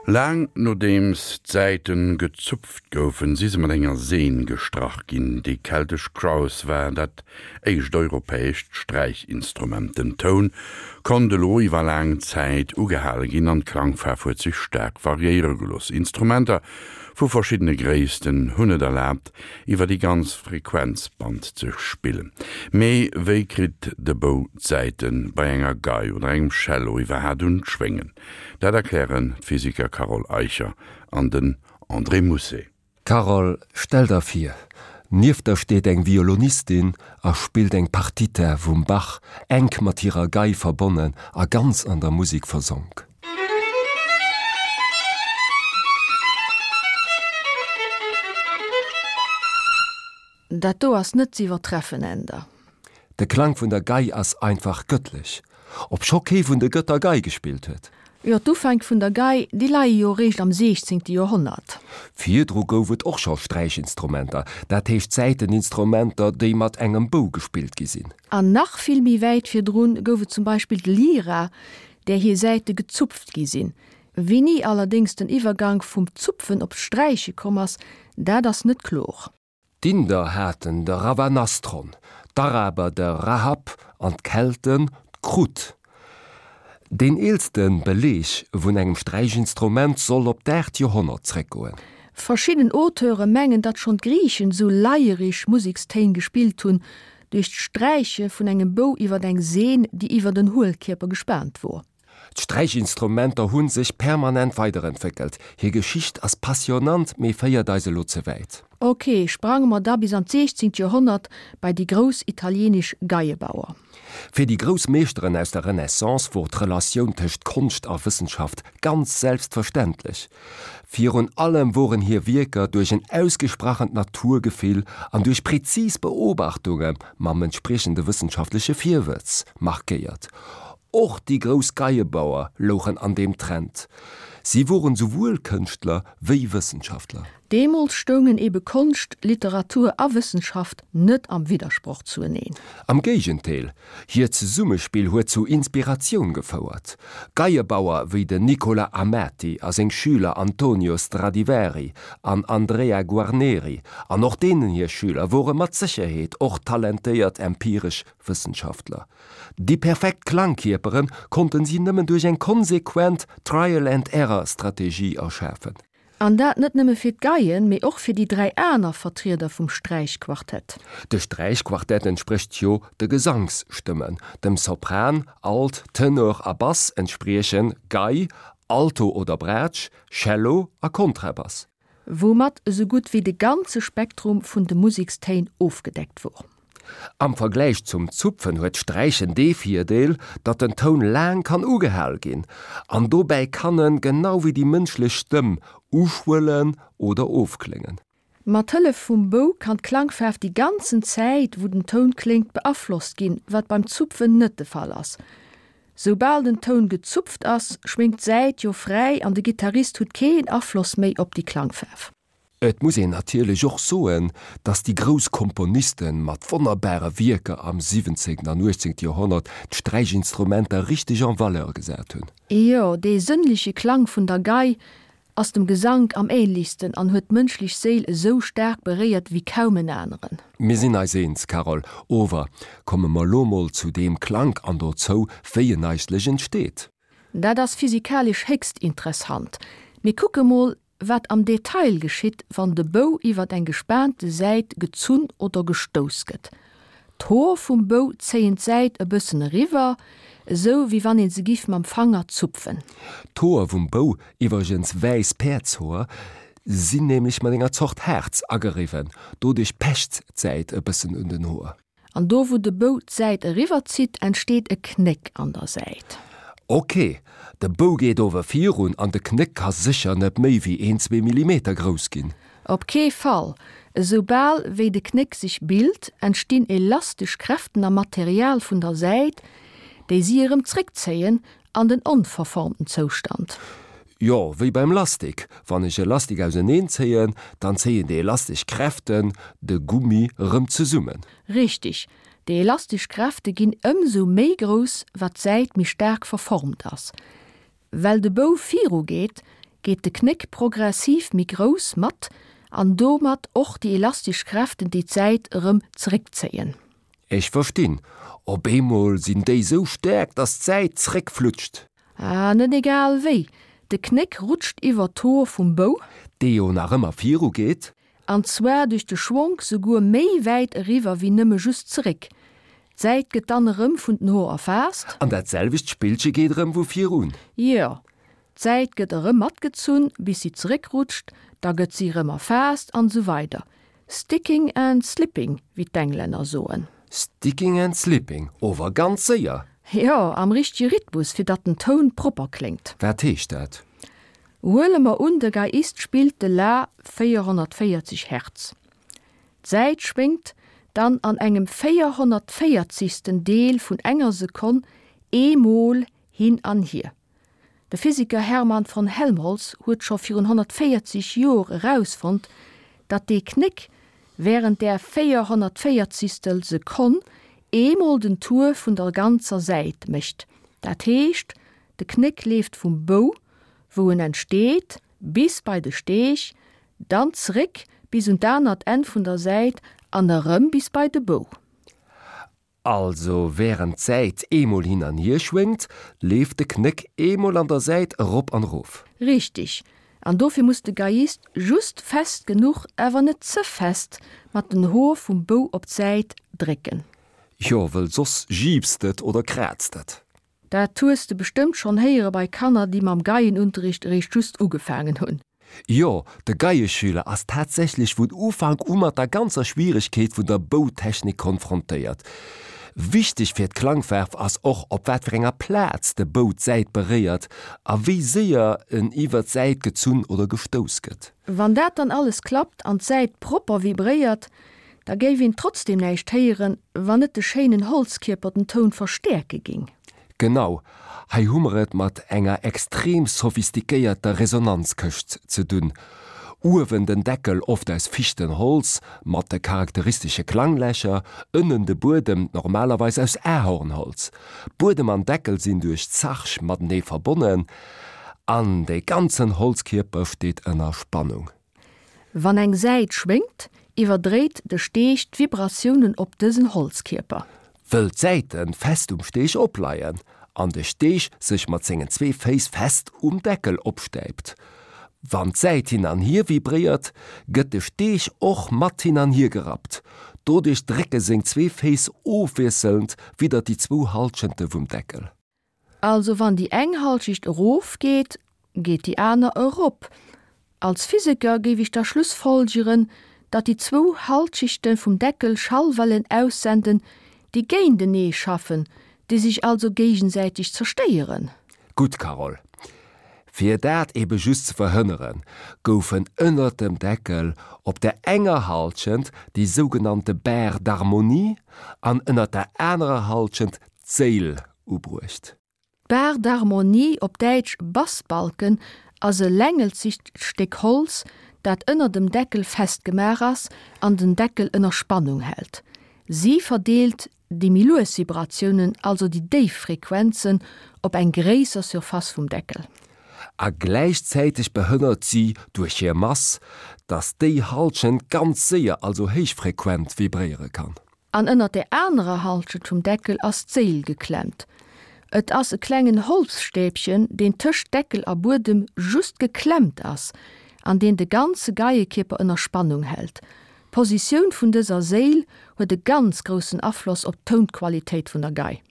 Laang nodeems d'Säiten gezupft goufen, si se mat enger Seen gestrach ginn. Déi keltesch Crowth war dat éischt europäescht Sträichinstrument. Den Toun konnt elo iwwer laang Zäit ugehale ginn an d'Klangfaarf huet sech staark variéiere gelooss. Instrumenter vu verschiddene Gréissten hunn et erlaabt, iwwer déi ganz Frequenzband ze spillen. Mee wéi kritt de Bou d'Säite bei enger Gei oder engem Cello iwwerhaat un d'Schwéngen? Dat erklären d'Physiker Carole Eicher an den André Mousset. Carole, stell der vir, nieft der steet eng Violonistin a spillt eng Partita vum Bach, enk mat hirer Gei verbonnen a ganz an der Musek versonk. Dat do ass net z'iwwertreffen, Änder. De Klang vun der Gei ass einfach gëttlech, obscho kee vun de Gëtter Gei gespillt huet. Jo, d'Ufänk vun der Gei, déi leie jo eréischt am siechzéngte Joerhonnert. Virdru gouf et och scho Sträichinstrumenter, dat heescht Säiteninstrumenter, déi mat engem Bou gespillt gi sinn. An nach vill méi wäit virdrun gouf et zum Beispill d'Lyra, där hir Säite gezupft gi sinn. Wéini allerdéngs den Iwwergank vum Zupfen op d'Sträiche komm ass, dat ass net klor. D'Inder haten de Ravanastron, d'Araber de Rahab an d'Kelten d'Krut. Deen eelste Beleeg vun engem Sträichinstrument soll op d'aacht Joerhonnert zréckgoen. Verschidden Auteure mengen, datt schonn d'Griichen esou leierig Musekstéin gespillt hunn, duerch d'Sträiche vun engem Bou iwwer eng Seen, déi iwwer en Huelkierper gespaant wor. D'Sträichinstrumenter hu sech permanent weiderentwéckelt. Hir Geschicht ass passionant, mee féiert eis elo ze wäit. Ok, sprange mer da bis an d'siechzéngt Joerhonnert bei déi grouss italienesch Geiebauer. Fir déi grouss Meeschteren aus der Renaissance wor d'Relatioun tëscht Konscht a Wëssenschaft ganz selbstverständlech. Virun allem woren hir Wierker duerch en ausgesprachent Naturgefill an duerch prezis Beobachtunge mam entspriechende wëssenschaftleche Virwëtz markéiert. Och déi grouss Geiebauer louchen an deem Trend. Si woren souwuel Kënschtler wéi Wëssenschaftler. Deemools stoungen ebe Konscht, Literatur a Wëssenschaft net am Widdersproch zueneen. Am Géigendeel, hiert Zesummespill huet zu Inspiratioun gefouert. Geiebauer wéi den Nicola Amati a seng Schüler Antonio Stradivari an Andrea Guarneri an och deenen hir Schüler wore mat Sécherheet och talentéiert empiresch Wëssenschaftler. Déi perfekt Klangkierpere konnten si nëmmen duerch eng konsequent Trial-and-Error-Strategie erschafen. An dat net nëmme fir d'Geien, mee och fir déi 3 aner Vertrieder vum Sträichquartett. De Sträichquartett entsprécht jo de Gesangsstëmmen. Dem Sopran, Alt, Tenor a Bass entspriechen Gei, Alto oder Braatsch, Cello a Kontrabass. Woumat esou gutt wéi de ganze Spektrum vun de Musekstéin ofgedeckt wor. Am Vergläich zum Zupfen huet d'Sträichen dee Virdeel, datt den Toun laang kann ugehal ginn, an dobäi kann en, genau wéi déi mënschlech Stëmm, uschwëllen oder ofkléngen. Mat Hëllef vum Bou kann d'Klangfaarf déi ganzen Zäit, wou den Toun kléngt, beaflosst ginn, wat beim Zupfen net de Fall ass. Soubal den Toun gezupft ass, schwéngt d'Säit jo fräi an de Gittarist hutt keen Afloss méi op déi Klangfaarf. Et muss een natierlech och soen, datt déi grouss Komponiste mat wonnerbare Wierker am siwwenzéngten an uechtzéngte Joerhonnert d'Sträichinstrumenter richteg en valeur gesat hunn. Jo, dee sënnleche Klang vun der Gei ass dem Gesank am ähnlechsten an huet d'mënschlech Séil esou staark beréiert wéi kaum en aneren. Mir sinn eis eens, Carole. Ower komme mer lo mol zu deem Klank an dozou, wéi en eigentlech entsteet. Dat ass physikalesch héchst interessant. Mir kucke mol, wat am Detail geschitt, wann de Bou iwwert eng gespaante Säit gezunn oder gestouss gëtt. D'Hoer vum Bou zéien d'Säit e bëssen eriwwer, esou wéi wann een se giff mam Fanger zupfen. D'Hoer vum Bou, iwwregens wäiss Päerdshoer, sinn nämlech mat enger Zort Haarz ageriwwen, doduerch pecht d'Säit e bëssen un den Hoer. An do wou de Bou d'Säit eriwwer zitt, entsteet e Knéck an der Säit. Ok, de Bou geet ower virun an de Knéck ka sécher net méi wéi een, zwee Millimeter grouss ginn. Op kee Fall! Esoubal wéi de Knéck sech bilt, entstinn elastesch Kräften am Material vun der Säit, déi si erëm zréckzéien an den onverformten Zoustand. Jo, wéi beim Lastik. Wann ech e Lastik auseneen zéien, dann zéien déi elastesch Kräften de Gummi erëm zesummen. Richtig, déi elastesch Kräfte ginn ëmsou méi grouss, wat d'Säit méi staark verformt ass. Well de Bou viru geet, Geet de Knéck progressiv méi grouss mat an domat och déi elastesch Kräften, déi d'Säit erëm zeréckzéien. Ech verstinn, op eemol sinn déi sou staark, dass d'Säit zréckflutscht. Ah, net egal wéi, de Knéck rutscht iwwer d'Hoer vum Bou. Dee jo nach ëmmer viru geet. An zwar duerch de Schwonk souguer méi wäit eriwwer wéi nëmme just zeréck. D'Säit gëtt dann erëm vun den Hoer erfaasst. An dat selwecht Spillche geet erëm vu vir un. Jo, d'Säit gëtt erëm matgezunn, bis si zeréckrutscht, da gëtt si erëm erfaasst an esou weider. Sticking and slipping, wéi d'Englänner soen. Sticking and slipping, ower ganz séier! Jo, am richtege Rhythmus, fir datt den Toun propper kléngt. Wat heescht dat? Huele mer un, de Geiist spillt de La 440 Hertz. D'Säit schwéngt dann an engem véierhonnertvéierzigsten Deel vun enger Sekonn eemol hin an hier. De Physiker Hermann von Helmholtz huet scho virun 140 Jor erausfonnt, datt dee Knéck wärend där véierhonnertvéierzigstel Sekonn eemol den Tour vun der ganzer Säit mécht. Dat heescht, de Knéck leeft vum Bou, wou en entsteet, bis bei de Steeg, dann zeréck bis un d'anert Enn vun der Säit an erëm bis bei de Bou. Also wärend d'Säit eemol hin an hier schwéngt, leeft de Knéck eemol an der Säit erop an erof. Richteg, an dofir muss de Geiist just fest genuch, awer net ze fest, mat den Hoer vum Bou op d'Säit drécken. Jo, wëll soss jiipst et oder kraazt et. Dat hues de bestëmmt schonn héiere bei Kanner, déi mam Geienunterricht eréischt just ugefaangen hunn. Jo, de Geieschüler ass tatsächlech vun Ufank u mat der ganzer Schwieregkeet vun der Boutechnik konfrontéiert. Wichteg fir d'Klangfaarf ass och, op wat fir enger Plaz de Bou d'Säit beréiert a wéi séier en iwwer d'Säit gezunn oder gestouss gëtt. Wann dat dann alles klappt an d'Säit propper vibréiert, Da géif een trotzdem näischt héieren, wann net de schéinen Holzkierper den Toun verstäerke ging. Genau, hei hu mer et mat enger extrem sophistiquéierter Resonanzkëscht ze dunn. Uewen den Deckel, oft aus Fichtenholz, mat de charakteristesche Klanglächer, ënnen de Buedem, normalerweis aus Ahornholz. Buedem an Deckel sinn duerch Zarg matenee verbonnen an de ganzen Holzkierper steet ënner Spannung. Wann eng Säit schwéngt, iwwerdréit de Steeg d'Vibratiounen op dësen Holzkierper. Wëll d'Säite fest um Steeg opleien an de Steeg sech mat sengen zwee Féiss fest um Deckel opstäipt. Wann d'Säit hin an hier vibréiert, gëtt de Steeg och mat hin an hier gerappt. Doduerch drécke seng zwee Féiss ofwiesselnd widder déi zwou Hallschente vum Deckel. Also wann déi eng Halschicht erof geet, geet déi aner erop. Als Physiker géif ech da schlussfolgeren, datt déi zwou Halschichte vum Deckel Schallwellen aussenden, déi géintenee schaffen, déi sech also géigesäiteg zerstéieren. Gutt, Carole. Fir dat ebe just ze verhënneren, goufen ënnert dem Deckel op der enger Halschent déi sougenannte Barre d'harmonie an ënnert der anerer Halschent d'Séil ubruecht. D'Barre d'harmonie, op Däitsch Bassbalken, ass e längelzegt Stéck Holz, dat ënner dem Deckel festgemaach ass an den Deckel ënner Spannung hält. Si verdeelt déi méi lues Vibratiounen, also déi déif Frequenzen, op eng gréisser Surface vum Deckel. A gläichzäiteg behënnert si duerch hir Mass, datt déi Halschent ganz séier, also héichfrequent, vibréiere kann. An ënnert der anerer Halschent vum Deckel ass d'Séil geklemmt. Et ass e klengen Holzstäbchen, deen tëscht Deckel a Buedem just geklemmt ass an deen de ganze Geiekierper ënner Spannung hält. D'Positioun vun dëser Séil huet e ganz groussen Afloss op d'Tounqualitéit vun der Gei.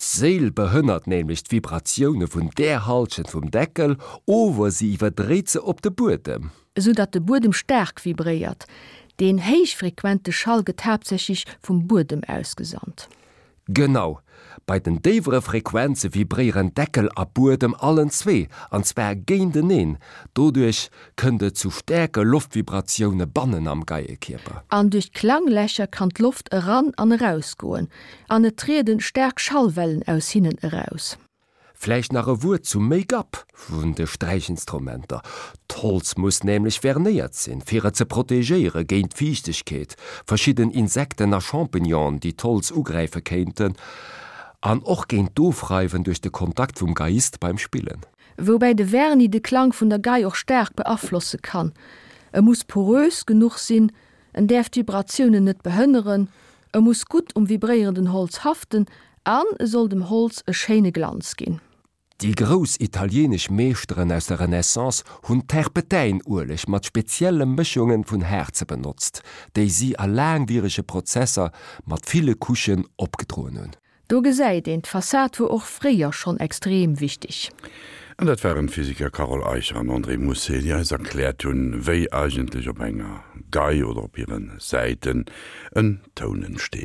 D'Séil behënnert nämlech d'Vibratioune vun där Halschent vum Deckel, ower si iwwerdréit se op de Buedem. Esou datt de Buedem staark vibréiert. Deen héichfrequente Schall gëtt haaptsächlech vum Buedem ausgesandt. Genau, bei den déiwere Frequenze vibréieren Deckel a Buedem allen zwee, an zwar géinteneen. Doduerch kënnt et zu staarke Loftvibratioune bannen am Geiekierper. An duerch d'Klanglächer kann d'Loft eran an erausgoen an et trieden staark Schallwellen aus hinnen eraus. Vläicht nach e Wuert zum Make-up vun de Sträichinstrumenter. D'Holz muss nämlech vernéiert sinn, fir et ze protegéiere géint d'Fiichtegkeet, verschidden Insekten a Champignonen, déi d'Holz ugräife kéinten, an och géint d'Ofreiwen duerch de Kontakt vum Geiist beim Spillen. Woubäi de Vernis de Klang vun der Gei och staark beaflosse kann. E muss porös genuch sinn, en däerf d'Vibratiounen net behënneren, e muss gutt um vibréierenden Holz haften an e soll dem Holz e schéine Glanz ginn. Déi grouss italienesch Meeschteren aus der Renaissance hunn Terpetäinueleg mat spezielle Mëschunge vun Haarze benotzt, déi si a laangwierege Prozesser mat ville Couchen opgedroen hunn. Do gesäit een, d'Fassad wor och fréier schonn extrem wichteg. An dat waren d'Physiker Carole Eicher an André Mousset, déi eis erkläert hunn, wéi eigentlech op enger Gei oder op hire Säiten en Toun entsteet.